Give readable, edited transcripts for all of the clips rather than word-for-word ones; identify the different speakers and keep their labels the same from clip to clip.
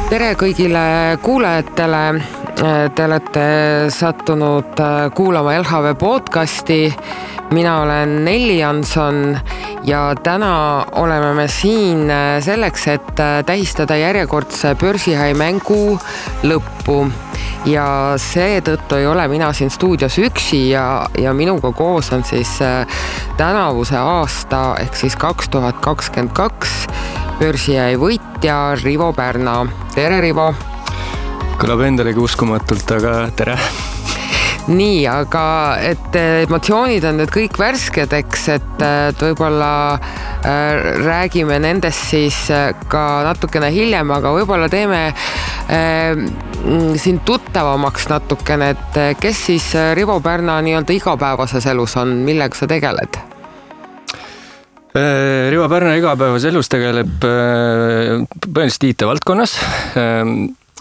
Speaker 1: Tere kõigile kuulajatele, te olete sattunud kuulama LHV podcasti, mina olen Nelli Janson ja täna oleme me siin selleks, et tähistada järjekordse börsihai mängu lõppu ja seetõttu ei ole mina siin stuudios üksi ja minuga koos on siis tänavuse aasta ehk siis 2022 börsihai võitja Rivo Pärna. Tere, Rivo!
Speaker 2: Kõlab endalegi uskumatult, aga tere!
Speaker 1: Nii, aga et emotsioonid on nüüd kõik värsked, eks, et võib-olla räägime nendest siis ka natukene hiljem, aga võib-olla teeme siin tuttavamaks natukene, et kes siis Rivo Pärna nii-öelda igapäevases elus on, millega sa tegeled?
Speaker 2: Rivo Pärna igapäevas elus tegeleb põhiliselt IT-valdkonnas.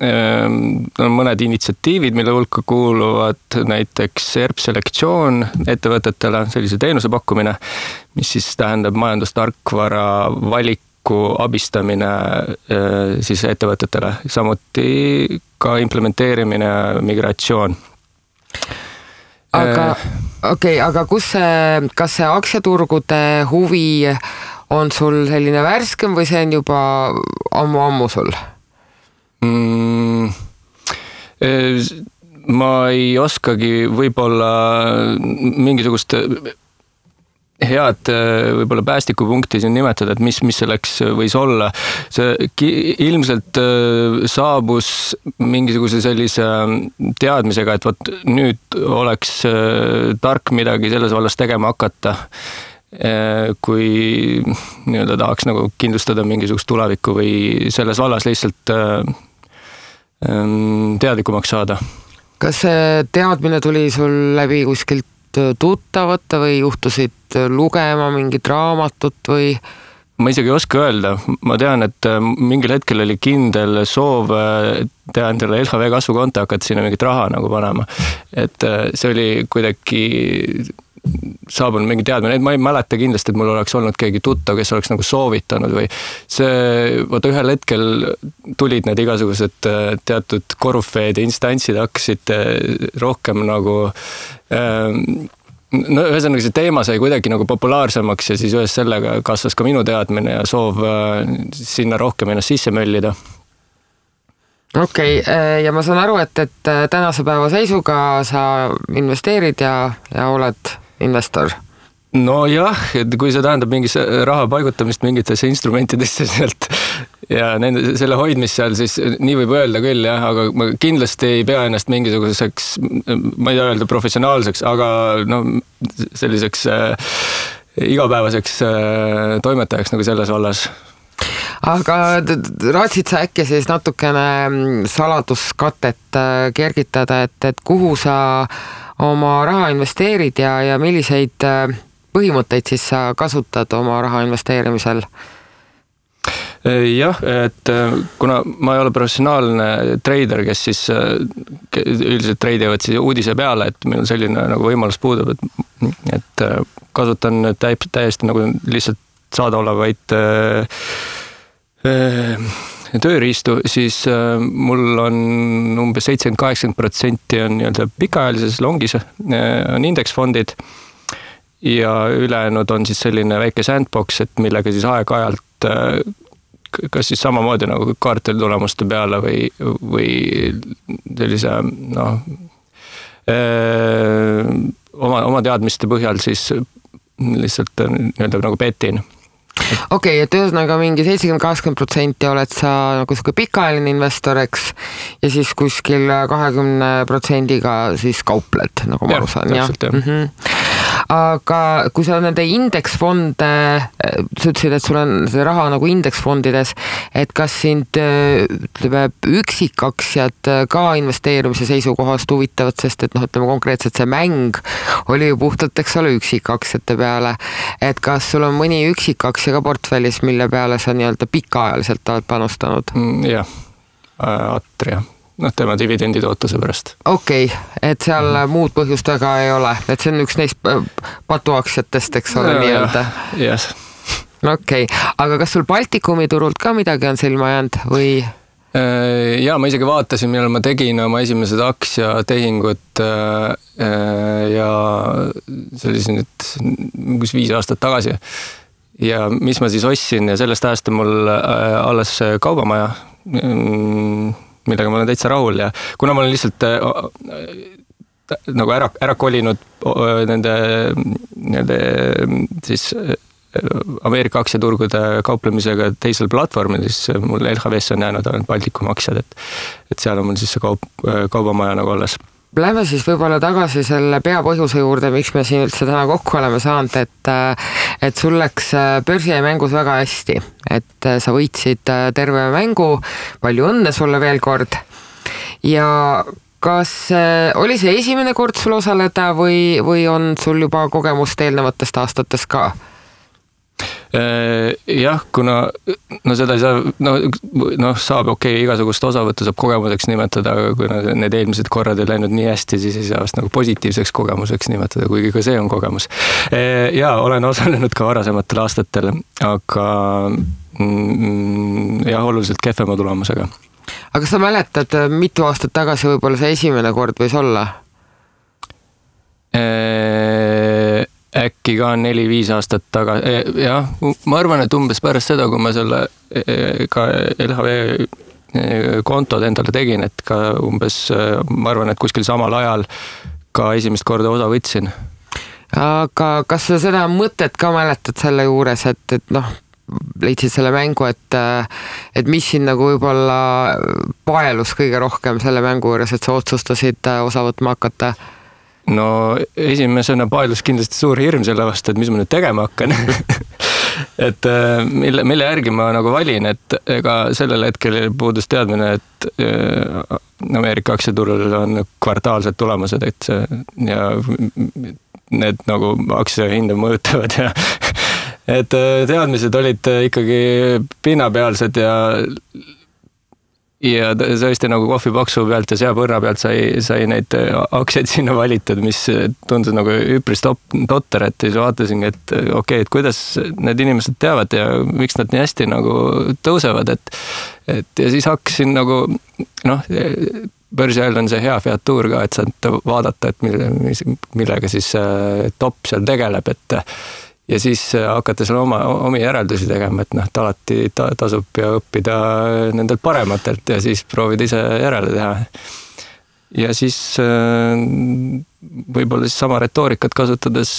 Speaker 2: On mõned initsiatiivid, mille hulka kuuluvad näiteks ERP-selektsioon ettevõtetele, sellise teenuse pakkumine, mis siis tähendab majandustarkvara valiku abistamine siis ettevõtetele, samuti ka implementeerimine ja migratsioon.
Speaker 1: Aga kas see aktsiaturgude huvi on sul selline värskem või see on juba ammu sul?
Speaker 2: Ma ei oskagi võib-olla mingisugust head võib-olla päästikupunkti siin nimetada, et mis selleks võis olla. See ilmselt saabus mingisuguse sellise teadmisega, et võt, nüüd oleks tark midagi selles vallas tegema hakata, kui nii-öelda tahaks nagu kindlustada mingisugust tulevikku või selles vallas lihtsalt teadlikumaks saada.
Speaker 1: Kas see teadmine tuli sul läbi kuskilt tuttavate või juhtusid lugema mingit raamatut või?
Speaker 2: Ma isegi ei oska öelda. Ma tean, et mingil hetkel oli kindel soov teha endale LHV kasvukonto, hakata sinna mingit raha nagu panema. Et see oli kuidagi saabunud mingi teadmine. Ma ei mäleta kindlasti, et mul oleks olnud keegi tuttav, kes oleks nagu soovitanud või see, vaata ühel hetkel tulid need igasugused teatud korufeed ja instantsid hakkasid rohkem nagu no ühesõnaga see teema sai kuidagi nagu populaarsemaks ja siis ühes sellega kasvas ka minu teadmine ja soov sinna rohkem ennast sisse möllida.
Speaker 1: Okei, ja ma saan aru, et tänase päeva seisuga sa investeerid ja oled investor.
Speaker 2: No jah, et kui see tähendab mingis raha paigutamist mingitesse instrumentidesse sealt ja selle hoidmist seal, siis nii võib öelda küll, jah, aga ma kindlasti ei pea ennast mingisuguseks, ma ei öelda professionaalseks, aga no, selliseks igapäevaseks toimetajaks nagu selles vallas.
Speaker 1: Aga raatsid sa äkki siis natukene saladuskatet kergitada, et kuhu sa oma raha investeerid ja milliseid põhimõtteid siis sa kasutad oma raha investeerimisel?
Speaker 2: Jah, et kuna ma ei ole professionaalne trader, kes siis üldiselt treidivad siis uudise peale, et meil selline nagu võimalus puudub, et kasutan täiesti nagu lihtsalt saadaolevaid tööriistu, siis mul on umbes 70-80% on nii-öelda pikaajalises longis on indeksfondid ja ülejäänud on siis selline väike sandbox, et millega siis aeg-ajalt kas siis samamoodi nagu kvartalitulemuste peale või sellise oma teadmiste põhjal siis lihtsalt nii-öelda nagu petin.
Speaker 1: Okei, et ühesõnaga mingi 70-80% oled sa nagu pikaajaline investor, eks, ja siis kuskil 20%-ga siis kaupled, nagu ma aru saan. Aga kui sa nende indeksfonde, sa ütlesid, et sul on see raha nagu indeksfondides, et kas sind üksikaktsiad ka investeerimise seisukohast huvitavad, sest et ütleme konkreetselt see mäng oli ju puhtalt, eks ole, üksikaktsiate peale, et kas sul on mõni üksikaktsia ka portfellis, mille peale sa nii-öelda pikaajaliselt oled panustanud?
Speaker 2: Jah, Atria. Tema dividendi tootuse pärast.
Speaker 1: Okei, et seal muud põhjust väga ei ole, et see on üks neist patuaktsiatest, eks ole, nii-öelda.
Speaker 2: Yes.
Speaker 1: Okei, aga kas sul Baltikumi turult ka midagi on silma jäänud või?
Speaker 2: Ja ma isegi vaatasin, millal ma tegin oma esimesed aktsiatehingud ja see oli siin nüüd 5 aastat tagasi. Ja mis ma siis ostsin ja sellest ajast on mul alles kaubamaja, millega ma olen täitsa rahul ja kuna ma olen lihtsalt nagu ära kolinud nende siis Ameerika aktsiaturgude kauplemisega teisel platvormil, siis mul LHV-s on jäänud ainult Baltikum aktsiad, et seal on mul siis see kaubamaja nagu alles.
Speaker 1: Lähme siis võib-olla tagasi selle peapõhjuse juurde, miks me siin üldse täna kokku oleme saanud, et sul läks börsijamängus väga hästi, et sa võitsid terve mängu, palju õnne sulle veel kord ja kas oli see esimene kord sul osaleda või on sul juba kogemust eelnevatest aastatest ka?
Speaker 2: Jah, kuna seda ei saa, saab igasugust osavõttu saab kogemuseks nimetada, aga kui need eelmised korrad ei läinud nii hästi, siis ei saa vast nagu positiivseks kogemuseks nimetada, kuigi ka see on kogemus. Ja olen osalenud ka varasematel aastatel, aga jah, oluliselt kehvema tulemusega.
Speaker 1: Aga sa mäletad, mitu aastat tagasi võib-olla see esimene kord võis olla?
Speaker 2: Äkki ka 4-5 aastat tagasi. Jah, ma arvan, et umbes pärast seda, kui ma selle ka LHV kontod endale tegin, et ka umbes, ma arvan, et kuskil samal ajal ka esimest korda osa võtsin.
Speaker 1: Aga kas sa seda mõtet ka mäletad selle juures, et leidsid selle mängu, et mis siin nagu võib-olla paelus kõige rohkem selle mängu juures, et sa otsustasid osa võtma hakata?
Speaker 2: No esimesena paelus kindlasti suur hirm selle vastu, et mis ma nüüd tegema hakkan. Et mille järgi ma nagu valin, et ega sellel hetkel puudus teadmine, et Ameerika aktsiaturul on kvartaalsed tulemused, et ja need nagu aktsiahinda mõjutavad ja et teadmised olid ikkagi pinnapealsed ja tõesti nagu kohvipaksu pealt ja seapõrna pealt sai neid aktsiaid sinna valitud, mis tundus nagu üpris totter, et siis vaatasin, et et kuidas need inimesed teavad ja miks nad nii hästi nagu tõusevad, et ja siis hakkasin nagu börsi ajal on see hea featuur ka, et saad vaadata, et millega siis top seal tegeleb, et ja siis hakata seal omi järeldusi tegema, et alati tasub ja õppida nendelt parematelt ja siis proovida ise järele teha. Ja siis võib-olla siis sama retoorikat kasutades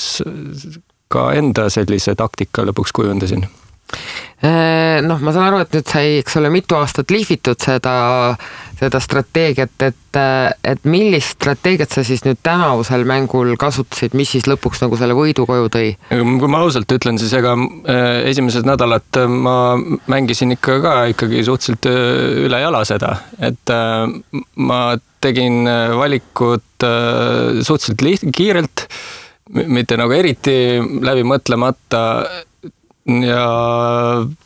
Speaker 2: ka enda sellise taktika lõpuks kujundasin.
Speaker 1: Ma saan aru, et nüüd sai, eks ole, mitu aastat liifitud seda strateegiat, et millist strateegiat sa siis nüüd tänavusel mängul kasutasid, mis siis lõpuks nagu selle võidu koju tõi?
Speaker 2: Kui ma ausalt ütlen, siis ega esimesed nädalat ma mängisin ikkagi suhteliselt üle jala seda, et ma tegin valikut suhteliselt kiirelt, mitte nagu eriti läbi mõtlemata ja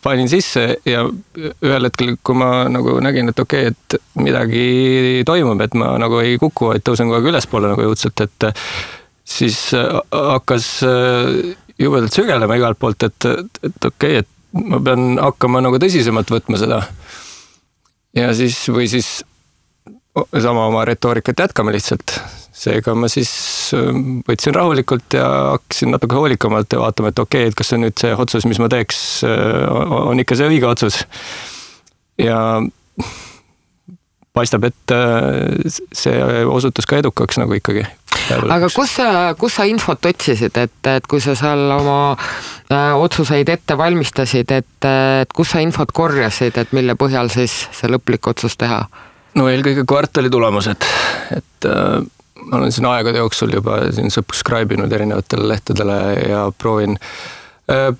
Speaker 2: panin sisse ja ühel hetkel, kui ma nagu nägin, et et midagi toimub, et ma nagu ei kuku, et tõusen kogu aeg ülespoole nagu jõudselt, et siis hakkas jubedalt sügelema igalt poolt, et ma pean hakkama nagu tõsisemalt võtma seda. Ja siis või siis sama oma retoorikat jätkama lihtsalt. Seega ma siis võtsin rahulikult ja hakkasin natuke hoolikamalt ja vaatama, et et kas see nüüd see otsus, mis ma teeks, on ikka see õige otsus. Ja paistab, et see osutus ka edukaks nagu ikkagi.
Speaker 1: Aga kus sa infot otsisid, et kui sa seal oma otsuseid ette valmistasid, et kus sa infot korjasid, et mille põhjal siis see lõplik otsus teha?
Speaker 2: No eelkõige kvartali tulemused, et ma olen siin aegade jooksul juba siin subscribe inud erinevatele lehtedele ja proovin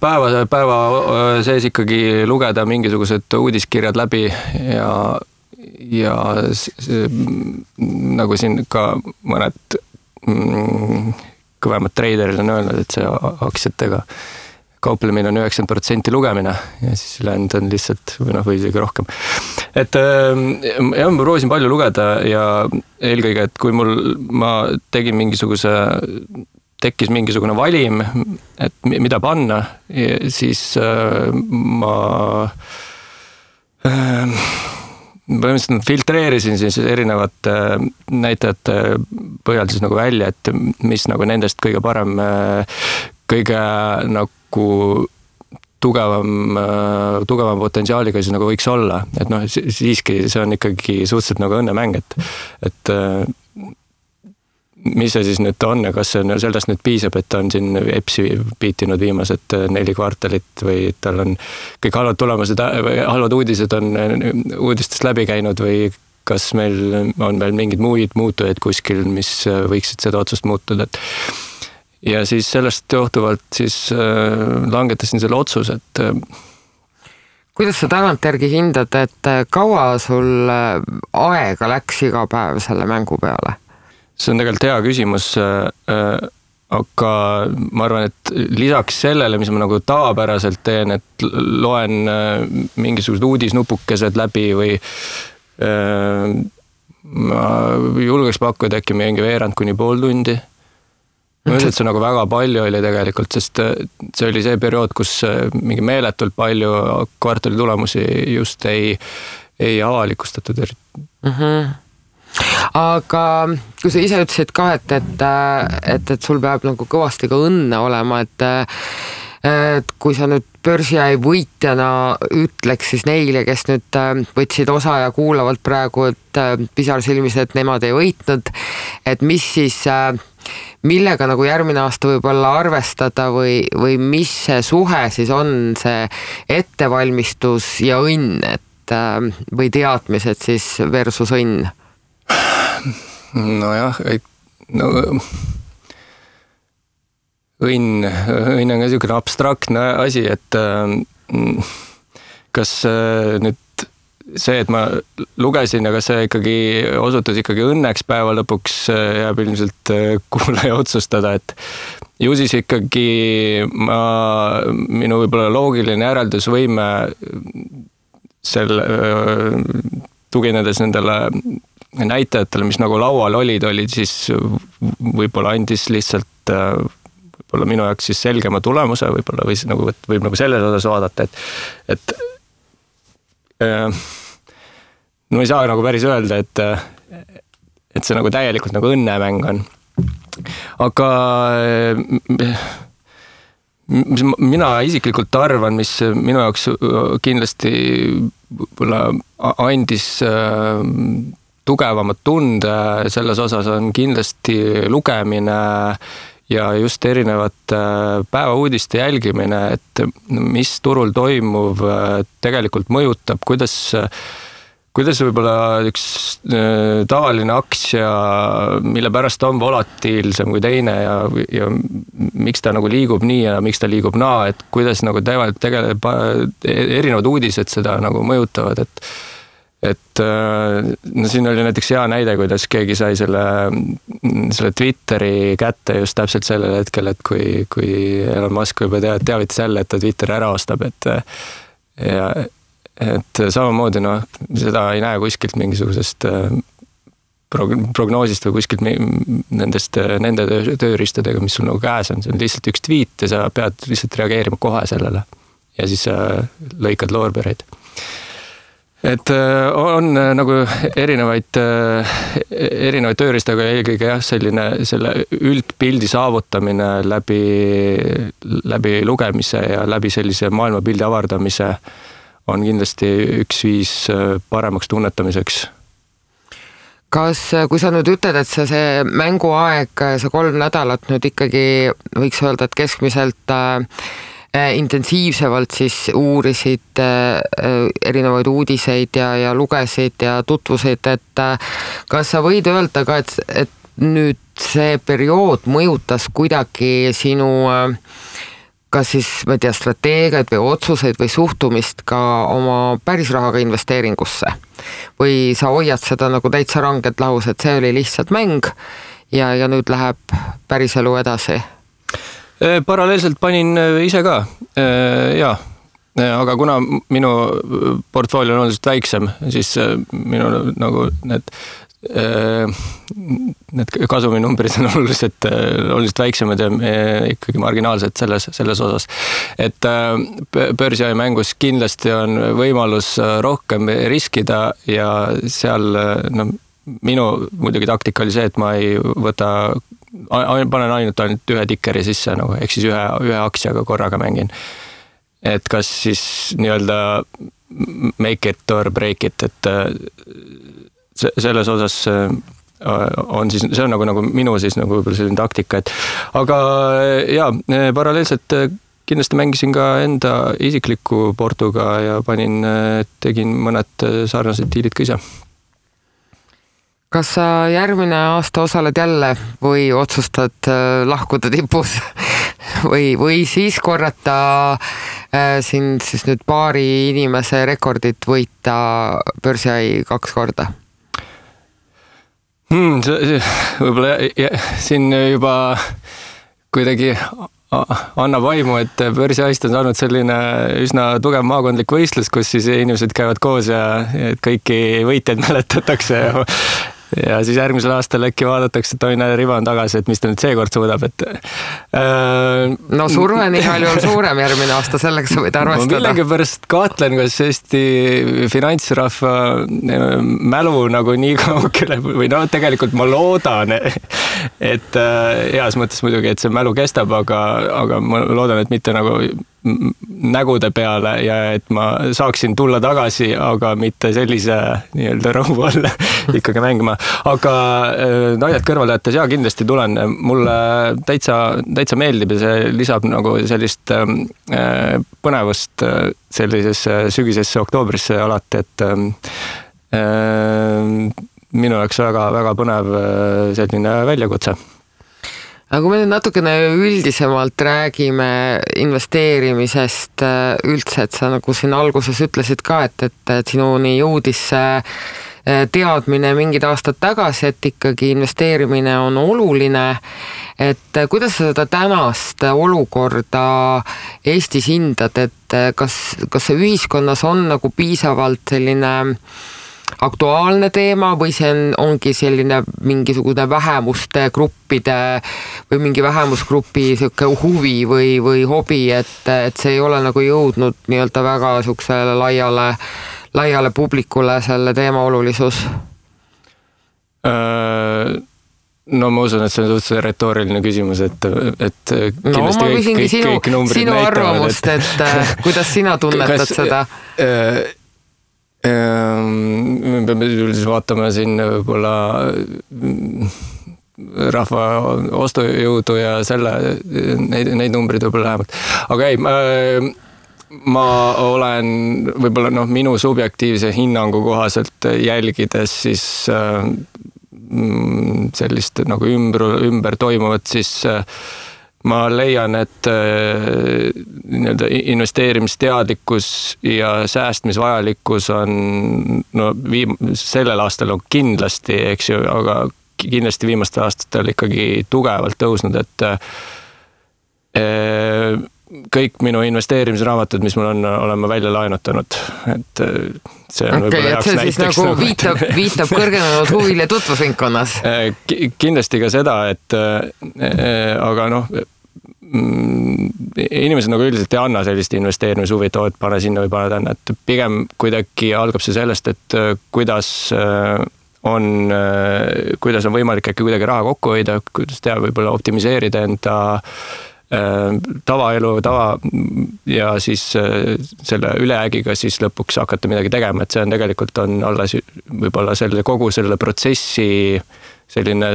Speaker 2: päeva sees ikkagi lugeda mingisugused uudiskirjad läbi ja nagu siin ka mõned kõvemad treiderid on öelnud, et see aktsiatega kauplemine on 90% lugemine ja siis ülejäänud on lihtsalt või isegi rohkem. Et jah, ma proovisin palju lugeda ja eelkõige, et kui ma tegin tekkis mingisugune valim, et mida panna, põhimõtteliselt filtreerisin siis erinevate näitajate põhjal siis nagu välja, et mis nagu nendest kõige parem, kõige nagu tugevam potentsiaaliga siis nagu võiks olla. Et noh, siiski see on ikkagi suhteliselt nagu õnnemäng, et mis see siis nüüd on ja kas sellest nüüd piisab, et ta on siin EPS-i piitinud viimased 4 kvartalit või tal on kõik halvad tulemused või halvad uudised on uudistest läbi käinud või kas meil on veel mingid muid muutujaid kuskil, mis võiksid seda otsust muutuda. Ja siis sellest johtuvalt siis langetasin selle otsuse, et
Speaker 1: kuidas sa tagantjärgi hindad, et kaua sul aega läks iga päev selle mängu peale?
Speaker 2: See on tegelikult hea küsimus, aga ma arvan, et lisaks sellele, mis ma nagu tavapäraselt teen, et loen mingisugused uudisnupukesed läbi või ma julgeks pakkuda äkki mingi veerand kuni pool tundi. Ma mõtlen, et see nagu väga palju oli tegelikult, sest see oli see periood, kus mingi meeletult palju kvartali tulemusi just ei avalikustatud.
Speaker 1: Aga kui sa ise ütlesid ka, et sul peab nagu kõvasti ka õnne olema, et kui sa nüüd börsiäi võitjana ütleks siis neile, kes nüüd võtsid osa ja kuulavalt praegu, et pisarsilmis, et nemad ei võitnud, et mis siis, millega nagu järgmine aasta võib-olla arvestada või mis see suhe siis on, see ettevalmistus ja õnn, või teadmised siis versus õnn?
Speaker 2: Nojah, õnn on ka niisugune abstraktne asi, et kas nüüd see, et ma lugesin ja kas see ikkagi osutus ikkagi õnneks päeva lõpuks jääb ilmselt kuulaja otsustada, et ju siis ikkagi minu võib-olla loogiline järeldusvõime tuginedes nendele näitajatele, mis nagu laual olid siis võib-olla andis lihtsalt võib-olla minu jaoks siis selgema tulemuse, võib-olla võib nagu selles osas vaadata, et no ei saa nagu päris öelda, et see nagu täielikult nagu õnnemäng on. Aga mina isiklikult arvan, mis minu jaoks kindlasti võib-olla andis tugevamat tunde selles osas on kindlasti lugemine ja just erinevate päevauudiste jälgimine, et mis turul toimuv tegelikult mõjutab, kuidas võib-olla üks tavaline aktsia, mille pärast on volatiilsem kui teine ja miks ta nagu liigub nii ja miks ta liigub naa, et kuidas nagu tegelikult erinevad uudised seda nagu mõjutavad, et no siin oli näiteks hea näide, kuidas keegi sai selle Twitteri kätte just täpselt sellel hetkel, et kui Elon Musk juba teavitas jälle, et ta Twitteri ära ostab, et samamoodi seda ei näe kuskilt mingisugusest prognoosist või kuskilt nende tööriistadega, mis sul nagu käes on, see on lihtsalt üks tweet ja sa pead lihtsalt reageerima kohe sellele ja siis lõikad loorbereid. Et on nagu erinevaid tööriistaga eelkõige selle üldpildi saavutamine läbi lugemise ja läbi sellise maailmapildi avardamise on kindlasti üks viis paremaks tunnetamiseks.
Speaker 1: Kas, kui sa nüüd ütled, et see mänguaeg, see 3 nädalat nüüd ikkagi võiks öelda, et keskmiselt intensiivsevalt siis uurisid erinevaid uudiseid ja lugesid ja tutvusid, et kas sa võid öelda ka, et nüüd see periood mõjutas kuidagi sinu kas siis, ma ei tea, strateegiaid või otsuseid või suhtumist ka oma pärisrahaga investeeringusse? Või sa hoiad seda nagu täitsa rangelt lahus, et see oli lihtsalt mäng ja nüüd läheb päriselu edasi?
Speaker 2: Paralleelselt panin ise ka, jaa. Aga kuna minu portfoolio on oluliselt väiksem, siis minu nagu need need kasuminumbrid on oluliselt väiksemad ja ikkagi marginaalsed selles osas. Et börsiaja mängus kindlasti on võimalus rohkem riskida ja seal minu muidugi taktika oli see, et ma ei panen ainult ühe tikkeri sisse, ehk siis ühe aktsiaga korraga mängin. Et kas siis nii-öelda make it or break it, et selles osas on siis, see on nagu minu siis nagu selline taktika, et aga paralleelselt kindlasti mängisin ka enda isikliku portuga ja tegin mõned sarnased diilid ka ise.
Speaker 1: Kas sa järgmine aasta osaled jälle või otsustad lahkuda tipus või siis korrata siin siis nüüd paari inimese rekordit võita börsiai 2 korda?
Speaker 2: Võib-olla siin juba kuidagi annab vaimu, et börsiaist on saanud selline üsna tugev maakondlik võistlus, kus siis inimesed käivad koos ja kõiki võitjaid mäletatakse ja siis järgmisel aastal äkki vaadatakse, et toine riba on tagasi, et mis ta nüüd seekord suudab, et
Speaker 1: no surve on igal juhul suurem järgmine aasta, selleks sa võid arvestada.
Speaker 2: Ma millegi pärast kahtlen, kas Eesti finantsrahva mälu nagu nii kaugele või tegelikult ma loodan, et heas mõttes muidugi, et see mälu kestab, aga ma loodan, et mitte nagu nägude peale ja et ma saaksin tulla tagasi, aga mitte sellise nii-öelda rõhu all ikkagi mängima. Aga naljad kõrvale jättes, kindlasti tulen. Mulle täitsa meeldib ja see lisab nagu sellist põnevust sellisesse sügisesse oktoobrisse alati, et minu jaoks väga põnev selline väljakutse.
Speaker 1: Aga kui me nüüd natukene üldisemalt räägime investeerimisest üldse, et sa nagu siin alguses ütlesid ka, et sinuni jõudis teadmine mingid aastad tagasi, et ikkagi investeerimine on oluline, et kuidas sa seda tänast olukorda Eestis hindad, et kas see ühiskonnas on nagu piisavalt selline aktuaalne teema või see ongi selline mingisugune vähemuste gruppide või mingi vähemusgrupi huvi või hobi, et see ei ole nagu jõudnud nii-öelda väga suksele laiale publikule selle teema olulisus?
Speaker 2: No ma usun, et see on suhteliselt retooriline küsimus, et
Speaker 1: no ma küsingi sinu arvamust, et kuidas sina tunnetad seda?
Speaker 2: Me peame üldiselt vaatama siin võib-olla rahva ostujõudu ja neid numbrid võib-olla lähemalt. Aga ma olen võib-olla minu subjektiivse hinnangu kohaselt jälgides siis sellist nagu ümber toimuvat, siis ma leian, et investeerimisteadlikkus ja säästmisvajalikkus on sellel aastal on kindlasti, eks ju, aga kindlasti viimastel aastatel ikkagi tugevalt tõusnud, et kõik minu investeerimisraamatud, mis mul on, olen ma välja laenutanud, et see on võib-olla heaks näiteks.
Speaker 1: Nagu viitab kõrgenenud huvile tutvusringkonnas.
Speaker 2: Kindlasti ka seda, et aga inimesed nagu üldiselt ei anna sellist investeerimishuvi, et pane sinna või pane tänna, et pigem kuidagi algab see sellest, et kuidas on võimalik äkki kuidagi raha kokku hoida, kuidas teha, võib-olla optimiseerida enda tavaelu ja siis selle ülejäägiga siis lõpuks hakata midagi tegema, et see on tegelikult on alles võib-olla kogu selle protsessi selline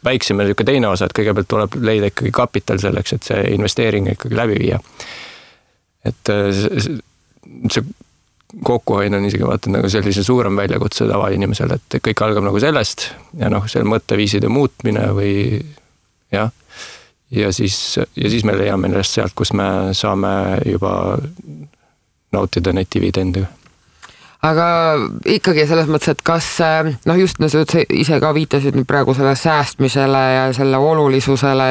Speaker 2: väiksem ja teine osa, et kõigepealt tuleb leida ikkagi kapital selleks, et see investeering ikkagi läbi viia. Et see kokkuhoid on isegi vaata nagu sellise suurem väljakutse tavainimesel, et kõik algab nagu sellest ja selle mõtteviiside muutmine või jah. Ja siis me leiame ennast sealt, kus me saame juba nautida neid dividendiga.
Speaker 1: Aga ikkagi selles mõttes, et kas just sa ise ka viitasid nüüd praegu selle säästmisele ja selle olulisusele,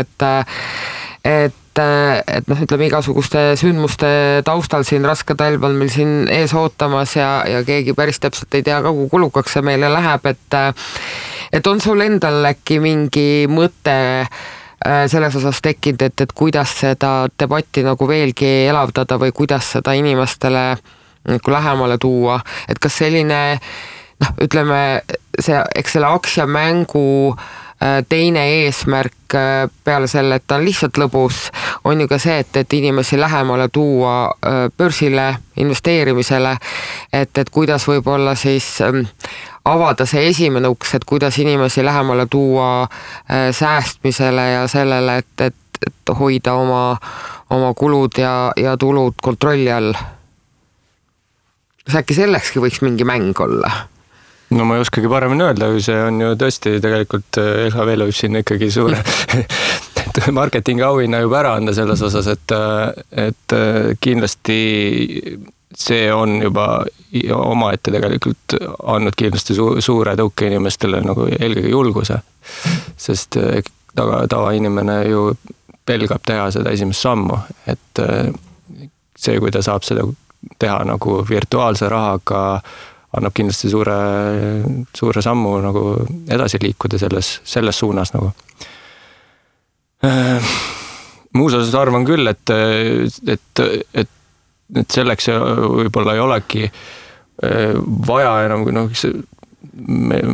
Speaker 1: et et noh, ütleme igasuguste sündmuste taustal siin raske talv on meil siin ees ootamas ja keegi päris täpselt ei tea ka, kui kulukaks see meile läheb, et on sul endal äkki mingi mõte selles osas tekkinud, et kuidas seda debatti nagu veelgi elavdada või kuidas seda inimestele nagu lähemale tuua, et kas selline noh, ütleme see, eks selle aktsiamängu teine eesmärk peale selle, et ta on lihtsalt lõbus, on ju ka see, et inimesi lähemale tuua börsile, investeerimisele, et kuidas võib-olla siis avada see esimene uks, et kuidas inimesi lähemale tuua säästmisele ja sellele, et hoida oma kulud ja tulud kontrolli all. Kas äkki sellekski võiks mingi mäng olla?
Speaker 2: No ma ei oskagi paremini öelda, see on ju tõesti tegelikult LHV võib siin ikkagi suure marketingi auhinna juba ära anda selles osas, et kindlasti see on juba omaette tegelikult andnud kindlasti suure tõuke inimestele nagu eelkõige julguse, sest tavainimene ju pelgab teha seda esimest sammu, et see, kui ta saab seda teha nagu virtuaalse rahaga, annab kindlasti suure sammu nagu edasi liikuda selles suunas nagu. Muus osas arvan küll, et selleks võib-olla ei olegi vaja enam,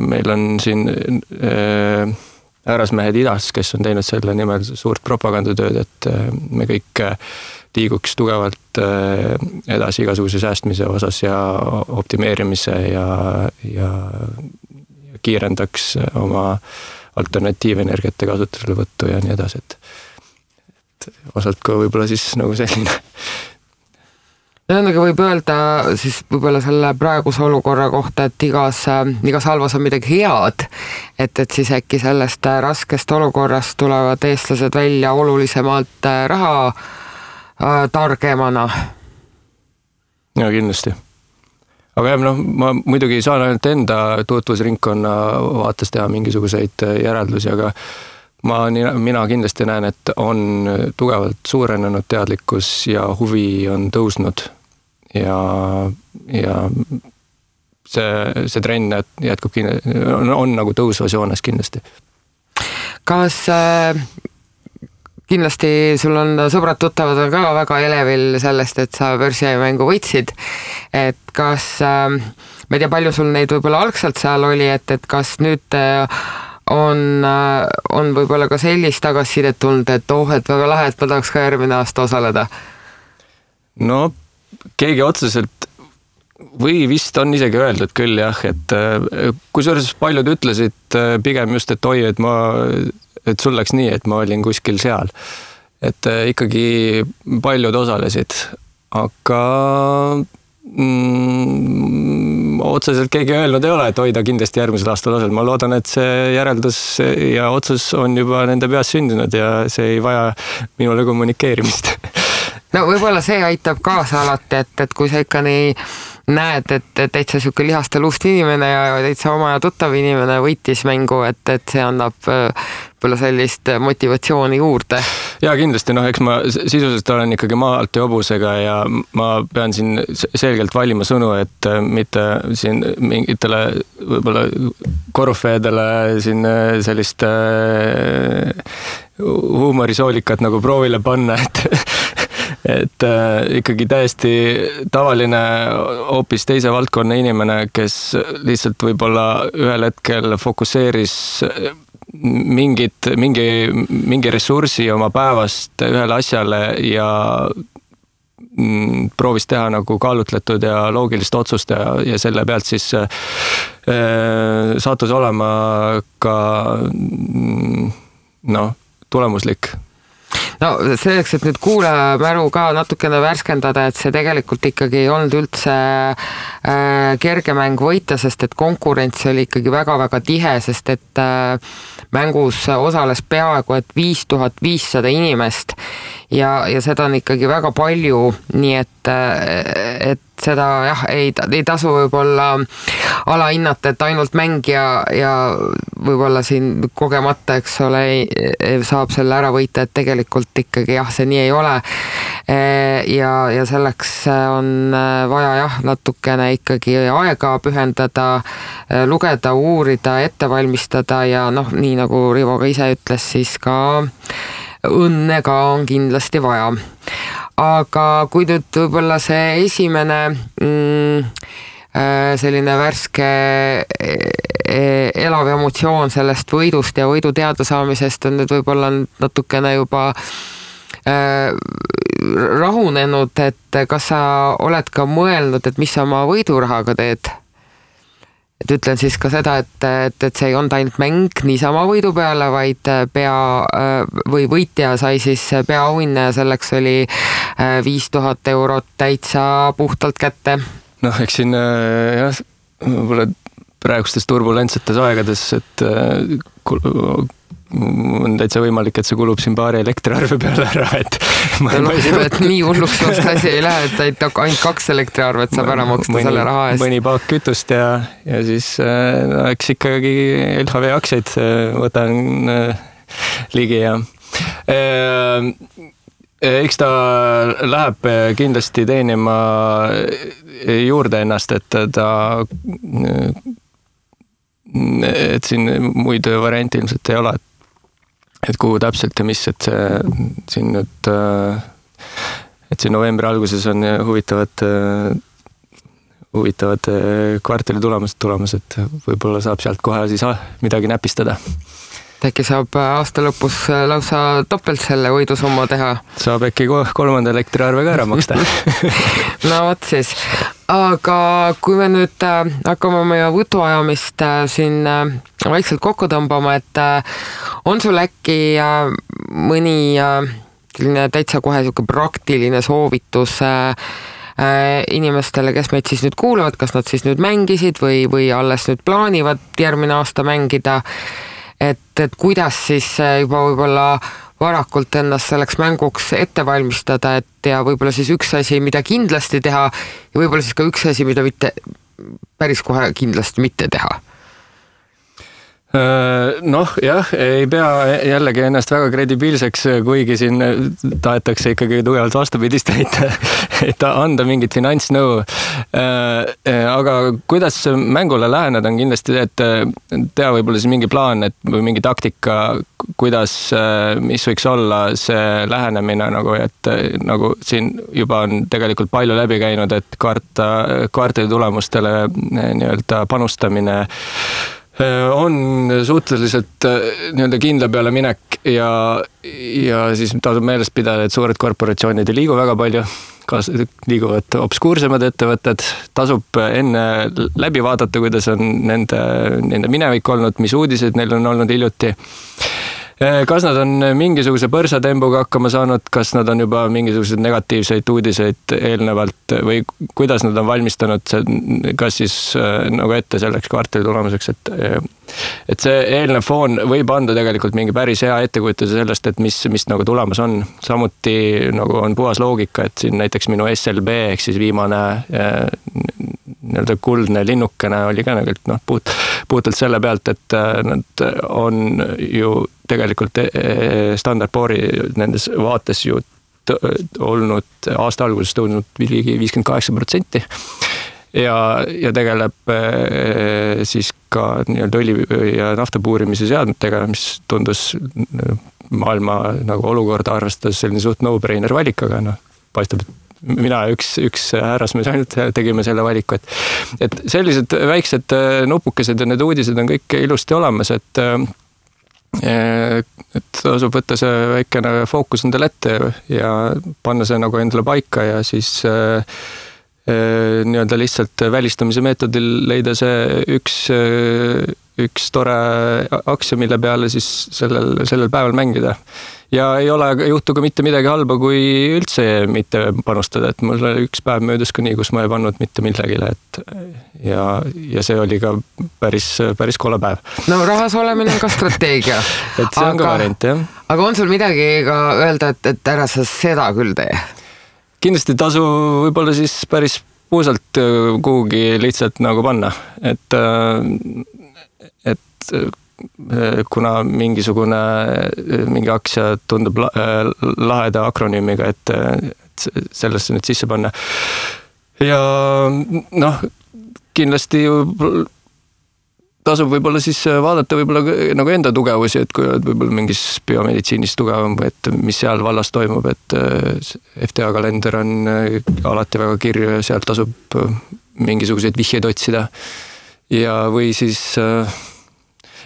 Speaker 2: meil on siin härrasmehed idas, kes on teinud selle nimel suurt propagandatööd, et me kõik liiguks tugevalt edasi igasuguse säästmise osas ja optimeerimise ja kiirendaks oma alternatiivenergiate kasutuselevõttu ja nii edasi, et osalt ka võib-olla siis nagu selline.
Speaker 1: Aga võib öelda siis võib-olla selle praeguse olukorra kohta, et igas halvas on midagi head, et siis äkki sellest raskest olukorrast tulevad eestlased välja olulisemalt raha targemana.
Speaker 2: Ja kindlasti. Aga jah, ma muidugi saan ainult enda tutvusringkonna vaates teha mingisuguseid järeldusi, aga mina kindlasti näen, et on tugevalt suurenenud teadlikkus ja huvi on tõusnud ja see trenn jätkub on nagu tõusvas joones kindlasti.
Speaker 1: Kas kindlasti sul on sõbrad-tuttavad on ka väga elevil sellest, et sa börsijamängu võitsid, et kas ma ei tea, palju sul neid võib-olla algselt seal oli, et kas nüüd on võib-olla ka sellist tagasisidet tulnud, et et väga lahe, et ma tahaks ka järgmine aasta osaleda?
Speaker 2: No keegi otseselt või vist on isegi öeldud küll jah, et kusjuures paljud ütlesid pigem just, et oi, et sul läks nii, et ma olin kuskil seal. Et ikkagi paljud osalesid, aga otseselt keegi öelnud ei ole, et hoida kindlasti järgmisel aastal osal. Ma loodan, et see järeldus ja otsus on juba nende peas sündinud ja see ei vaja minule kommunikeerimist.
Speaker 1: No võib-olla see aitab kaasa alati, et kui sa ikka nii näed, et täitsa siuke lihaste luust inimene ja täitsa oma ja tuttav inimene võitis mängu, et see annab võib-olla sellist motivatsiooni juurde. Ja kindlasti, eks ma sisuliselt olen ikkagi maalt ja hobusega ja ma pean siin selgelt valima sõnu, et mitte siin mingitele võib-olla korvfeedele siin sellist huumorisoolikat nagu proovile panna, et ikkagi täiesti tavaline hoopis teise valdkonna inimene, kes lihtsalt võib-olla ühel hetkel fokusseeris mingi ressursi oma päevast ühele asjale ja proovis teha nagu kaalutletud ja loogilist otsust ja selle pealt siis sattus olema ka tulemuslik. No selleks, et nüüd kuulajamäru ka natukene värskendada, et see tegelikult ikkagi ei olnud üldse kerge mäng võita, sest et konkurents oli ikkagi väga-väga tihe, sest et mängus osales peaaegu et 5500 inimest ja seda on ikkagi väga palju, nii et seda jah, ei tasu võib-olla alahinnata, et ainult mängija ja võib-olla siin kogemata, eks ole, saab selle ära võita, et tegelikult ikkagi jah, see nii ei ole. Ja selleks on vaja jah, natukene ikkagi aega pühendada, lugeda, uurida, ette valmistada ja noh, nii nagu Rivo ka ise ütles, siis ka õnne ka on kindlasti vaja. Aga kui nüüd võib-olla see esimene selline värske elav emotsioon sellest võidust ja võidu teada saamisest on nüüd võib-olla natukene juba rahunenud, et kas sa oled ka mõelnud, et mis sa oma võidurahaga teed? Et ütlen siis ka seda, et see ei olnud ainult mäng niisama võidu peale, vaid või võitja sai siis peaauhinne ja selleks oli 5000 eurot täitsa puhtalt kätte.
Speaker 2: Noh, eks siin jah, võib-olla praegustes turbulentsetes aegades, et on täitsa võimalik, et see kulub siin paari elektriarve peale ära, et
Speaker 1: et nii hulluks vast asi ei lähe, et ainult 2 elektriarvet saab ära maksta selle raha eest.
Speaker 2: Mõni paak kütust ja siis eks ikkagi LHV aktsiaid võtan ligi ja eks ta läheb kindlasti teenima juurde ennast, et siin muid variante ilmselt ei ole, et kuhu täpselt ja mis, et siin nüüd, et siin novembri alguses on huvitavad kvartali tulemas, et võib-olla saab sealt kohe siis midagi näpistada.
Speaker 1: Äkki saab aasta lõpus lausa topelt selle võidusumma teha?
Speaker 2: Saab äkki 3. elektriarve ka ära maksta.
Speaker 1: No võt siis. Aga kui me nüüd hakkame meie võtuajamist siin vaikselt kokku tõmbama, et on sul äkki mõni täitsa kohe praktiline soovitus inimestele, kes meid siis nüüd kuulavad, kas nad siis nüüd mängisid või alles nüüd plaanivad järgmine aasta mängida, et kuidas siis juba võib-olla varakult ennast selleks mänguks ette valmistada, et ja võib-olla siis üks asi, mida kindlasti teha ja võib-olla siis ka üks asi, mida mitte päris kohe kindlasti mitte teha.
Speaker 2: Noh, jah, ei pea jällegi ennast väga kredibiilseks, kuigi siin tahetakse ikkagi tugevalt vastupidist et anda mingit finantsnõu. Aga kuidas mängule läheneda on kindlasti, et teha võib-olla siis mingi plaan, või mingi taktika, kuidas, mis võiks olla see lähenemine, et nagu siin juba on tegelikult palju läbi käinud, et kvartali tulemustele nii-öelda panustamine on suhteliselt nii-öelda kindla peale minek ja siis tasub meelest pidada, et suured korporatsioonid ei liigu väga palju, liiguvad obskuursemad ettevõtted, tasub enne läbi vaadata, kuidas on nende minevik olnud, mis uudised neil on olnud hiljuti. Kas nad on mingisuguse põrsatembuga hakkama saanud, kas nad on juba mingisuguseid negatiivseid uudiseid eelnevalt või kuidas nad on valmistanud kas siis nagu ette selleks kvartali tulemuseks, et see eelnev foon võib anda tegelikult mingi päris hea ettekujutuse sellest, et mis nagu tulemas on. Samuti nagu on puhas loogika, et siin näiteks minu SLB ehk siis viimane nii-öelda kuldne linnukene oli ka puhtalt selle pealt, et nad on ju tegelikult Standard & Poor'i nendes vaates ju olnud aasta alguses tõusnud 58% ja tegeleb siis ka nii-öelda õli ja nafta puurimise seadmetega, mis tundus maailma nagu olukorda arvestades selline suht no-brainer valik, aga paistab, et mina üks härrasmees ainult tegime selle valiku, et sellised väiksed nupukesed ja need uudised on kõik ilusti olemas, et tasub võtta see väikene fookus endale ette ja panna see nagu endale paika ja siis nii-öelda lihtsalt välistamise meetodil leida see üks üks tore aktsia, mille peale siis sellel päeval mängida. Ja ei juhtu ka mitte midagi halba, kui üldse mitte panustada, et mul üks päev möödus ka nii, kus ma ei pannud mitte millegile, et ja see oli ka päris kole päev.
Speaker 1: No rahas olemine on ka strateegia.
Speaker 2: Et see on ka variant, jah.
Speaker 1: Aga on sul midagi ka öelda, et ära sa seda küll tee?
Speaker 2: Kindlasti tasu võib-olla siis päris puusalt kuhugi lihtsalt nagu panna, et kuna mingi aktsia tundub laheda akronüümiga, et sellesse nüüd sisse panna. Ja kindlasti tasub võib-olla siis vaadata võib-olla nagu enda tugevusi, et kui oled võib-olla mingis biomeditsiinis tugevam, et mis seal vallas toimub, et FTA kalender on alati väga kirju ja sealt tasub mingisuguseid vihjeid otsida. Ja või siis,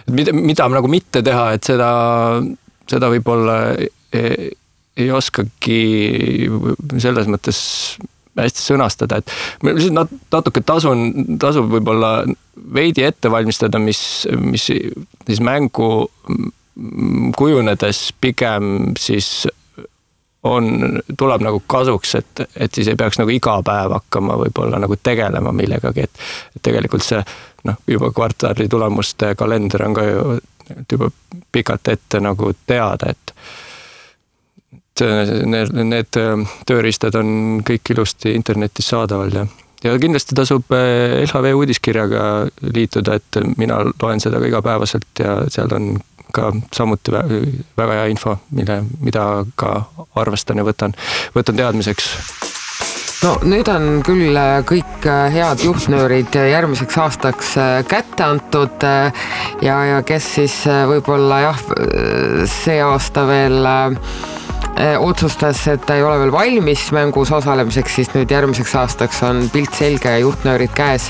Speaker 2: mida nagu mitte teha, et seda võib-olla ei oskagi selles mõttes hästi sõnastada, et natuke tasub võib-olla veidi ette valmistada, mis siis mängu kujunedes pigem siis tuleb nagu kasuks, et siis ei peaks nagu iga päev hakkama võib-olla nagu tegelema millegagi, et tegelikult see juba kvartali tulemuste kalender on ka juba pikalt ette nagu teada, et need tööriistad on kõik ilusti internetis saadaval ja kindlasti tasub LHV uudiskirjaga liituda, et mina loen seda ka igapäevaselt ja seal on ka samuti väga hea info, mida ka arvestan ja võtan teadmiseks.
Speaker 1: No nüüd on küll kõik head juhtnöörid järgmiseks aastaks kätte antud ja kes siis võib-olla see aasta veel otsustas, et ta ei ole veel valmis mängus osalemiseks, siis nüüd järgmiseks aastaks on pilt selge ja juhtnöörid käes.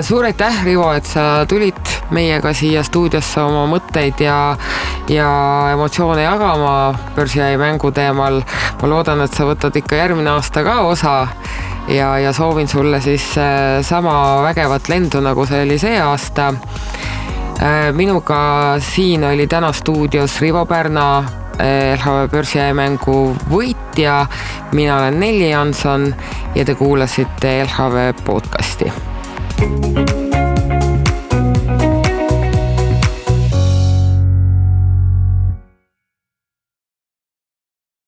Speaker 1: Suur aitäh, Rivo, et sa tulid meiega siia stuudiosse oma mõtteid ja emotsioone jagama börsiai mängu teemal. Ma loodan, et sa võtad ikka järgmine aasta ka osa ja soovin sulle siis sama vägevat lendu, nagu see oli see aasta. Minuga siin oli täna stuudios Rivo Pärna, LHV börsiai mängu võitja. Mina olen Nelli Jansson ja te kuulasite LHV podcasti.